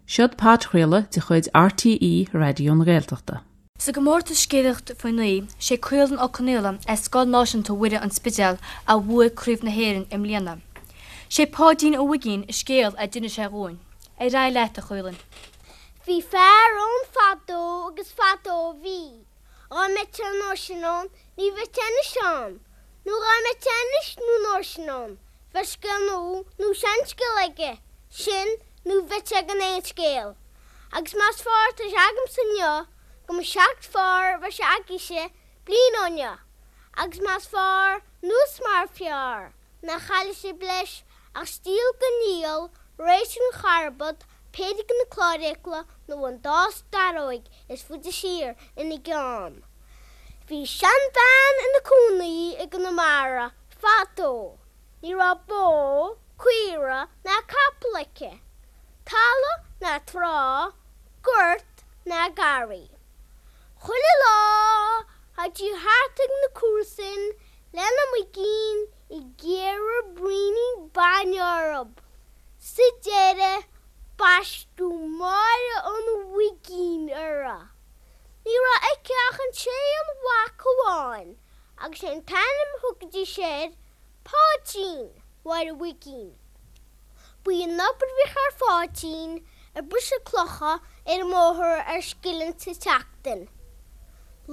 Seod podchraoladh de chuid RTÉ Raidió na Gaeltachta. Sa gcomórtas Scéalaíocht Faoi Naoi, sé Caolan Ó Conaola as Scoil Náisiúnta Mhuire an Spidéal a bhuaigh Craobh na hÉireann i mbliana. Sé Páidín an Mhuigín an scéal a d'inis sé dhúinn. Ar aghaidh leat, a Chaolain. Bhí fear ann fadó agus fadó a bhí. Dhá mbeadh sé an uair sin ann, ní bheadh sé anois ann. Nó dhá mbeadh sé anois nó an uair sin ann, bheadh scéal nua nó seanscéal aige, sin nó bheadh sé gan aon scéal. Agus más fearr atá sé agamsa inniu go mba seacht fearr a bheadh sé agaibhse bliain ó inniu, agus más fearr nó is mar fearr nach chaillfidh sibh leis ach stiall den fhuíoll, roinnt den charbad, péire de na cláirfhiacla nó an dá starróig is faide siar ina gceann. Bhí seanbhean ina cónaí i gConamara fadó. Ní raibh bó, caora ná capall aici. Talamh ná trá, gort ná garraí. Chuile lá théadh sí thart ag na comharsain lena muigín ag iarraidh braoinín bainne orthu. Sa deireadh baisteadh Máire an Mhuigín uirthi. Ní raibh aici ach an t-aon mhac amháin agus sé an t-ainm a thugaidís air Páidín Mháire Mhuigín. Ba í an obair a bhíodh ar Pháidín ag briseadh clocha ar an mbóthar ar scilling sa tseachtain.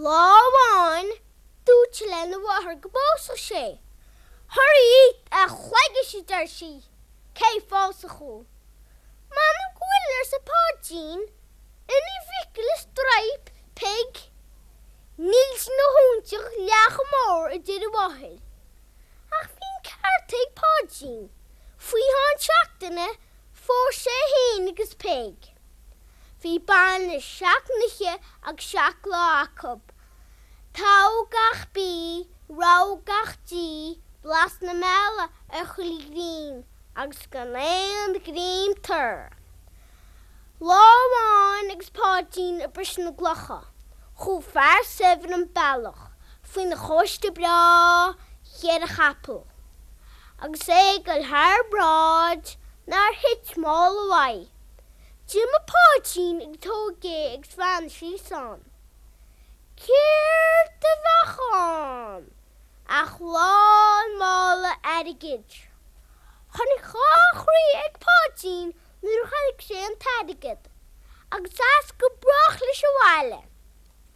Lá amháin dúirt sé lena mháthair go bpósfadh sé. Thar a chloigis a deir sí, cé phósfadh thú? M'anam go bhfuil arsa Páidín. Ina phicil is draip Peig. Níl sí ina hóinseach leath chomh mór a deir a mháthair. Ach bhí an ceart ag Páidín. Faoi cheann seachtaine phós sé féin agus Peig. Bhí bainis seacht n-oíche agus seacht lá acu. Togha gach bí, rogha gach dí, blas na meala ar chuile ghreim agus gan aon ghreim tur. Lá amháin agus Páidín ag briseadh na gclocha, chuaigh fear saibhir an bealach faoina chóiste breá cheithre chapall. Agus é ag dul thar bráid nár thit mála uaidh. D'imigh Páidín agus thóg é agus bhreathnaigh síos ann. Céard a bheadh ann ach lán mála airgid. Tháinig dhá chroí ag Páidín nuair a chonaic sé an t-airgead, agus as go brách leis abhaile,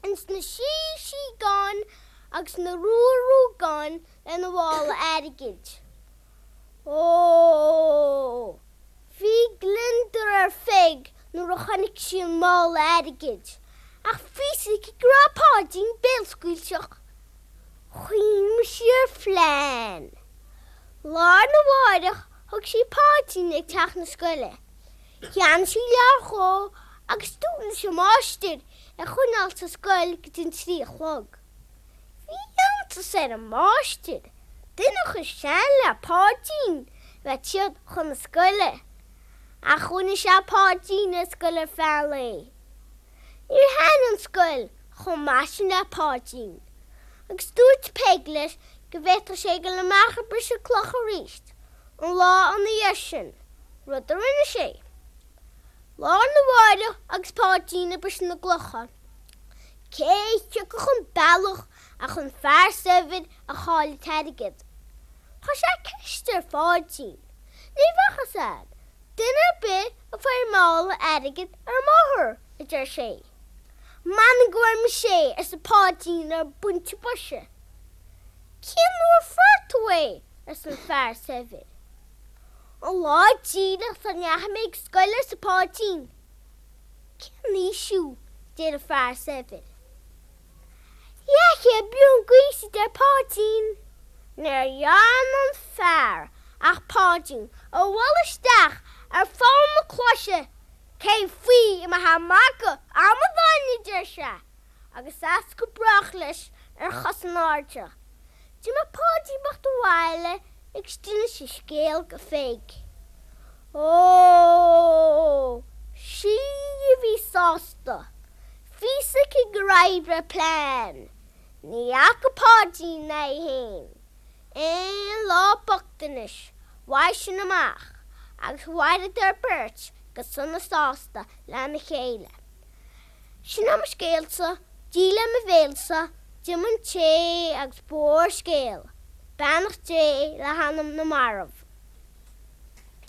ins na sí-síogáin agus na rua-ruagáin lena mhála airgid. Ó! Bhí gliondar ar Pheig nuair a chonaic sí an mála airgid, ach bhí fhios aici go raibh Páidín béalscaoilteach. Chuimhnigh sí ar phlean. Lá arna mháireach thug sí Páidín ag teach na scoile. Cheannaigh sí leabhar dhó agus dúirt leis an máistir é a choinneáil sa scoil go dtí an trí a chlog. Bhí iontas ar an máistir, duine chomh sean le Páidín a bheith ag troid chun na scoile. Ach choinnigh sé Páidín ar scoil ar feadh an lae. Níor thaitin an scoil chomh maith sin le Páidín agus dúirt Peig leis go bhféadfadh sé dul amach ag briseadh cloch arís an lá ina dhiaidh sin, rud a rinne sé. Lá arna mháireach agus Páidín ag briseadh na gclocha, cé a thiocfadh an bealach ach an fear saibhir a chaill an t-airgead. Chuir sé ceist ar Pháidín. Ní bhfacthas duine ar bith a fuair mála airgid ar an mbóthar, a deir sé. M'anam go bhfuair mise é, arsa Páidín ar an bpointe boise. Cén uair a fuair tú é? arsa an fear saibhir. An lá díreach sula ndeachaigh mé ag scoil, arsa Páidín. Cén aois thú? deir an fear saibhir. Leathchéad bliain d'aois, a deir Páidín. Níor dhearna an fear ach Páidín a bhualadh isteach ar pholl na cluaise. Cén faoi a mbeifeá ag magadh, a amadáin, a deir sé, agus as go brách leis ar chos in airde. D'imigh Páidín bocht abhaile agus d'inis an scéal go Pheig. Ó, sí a bhí sásta. Bhí fhios aici gur oibrigh a plean. Ní fhaca Páidín ná í féin aon lá bochtanais uaidh sin amach agus mhaireadar beirt Go sona sásta lena chéile. Sin é mo scéalsa, Dia le mo bhéalsa, D'imigh an té agus ba mhór an scéal. Beannacht Dé le hanam na marbh.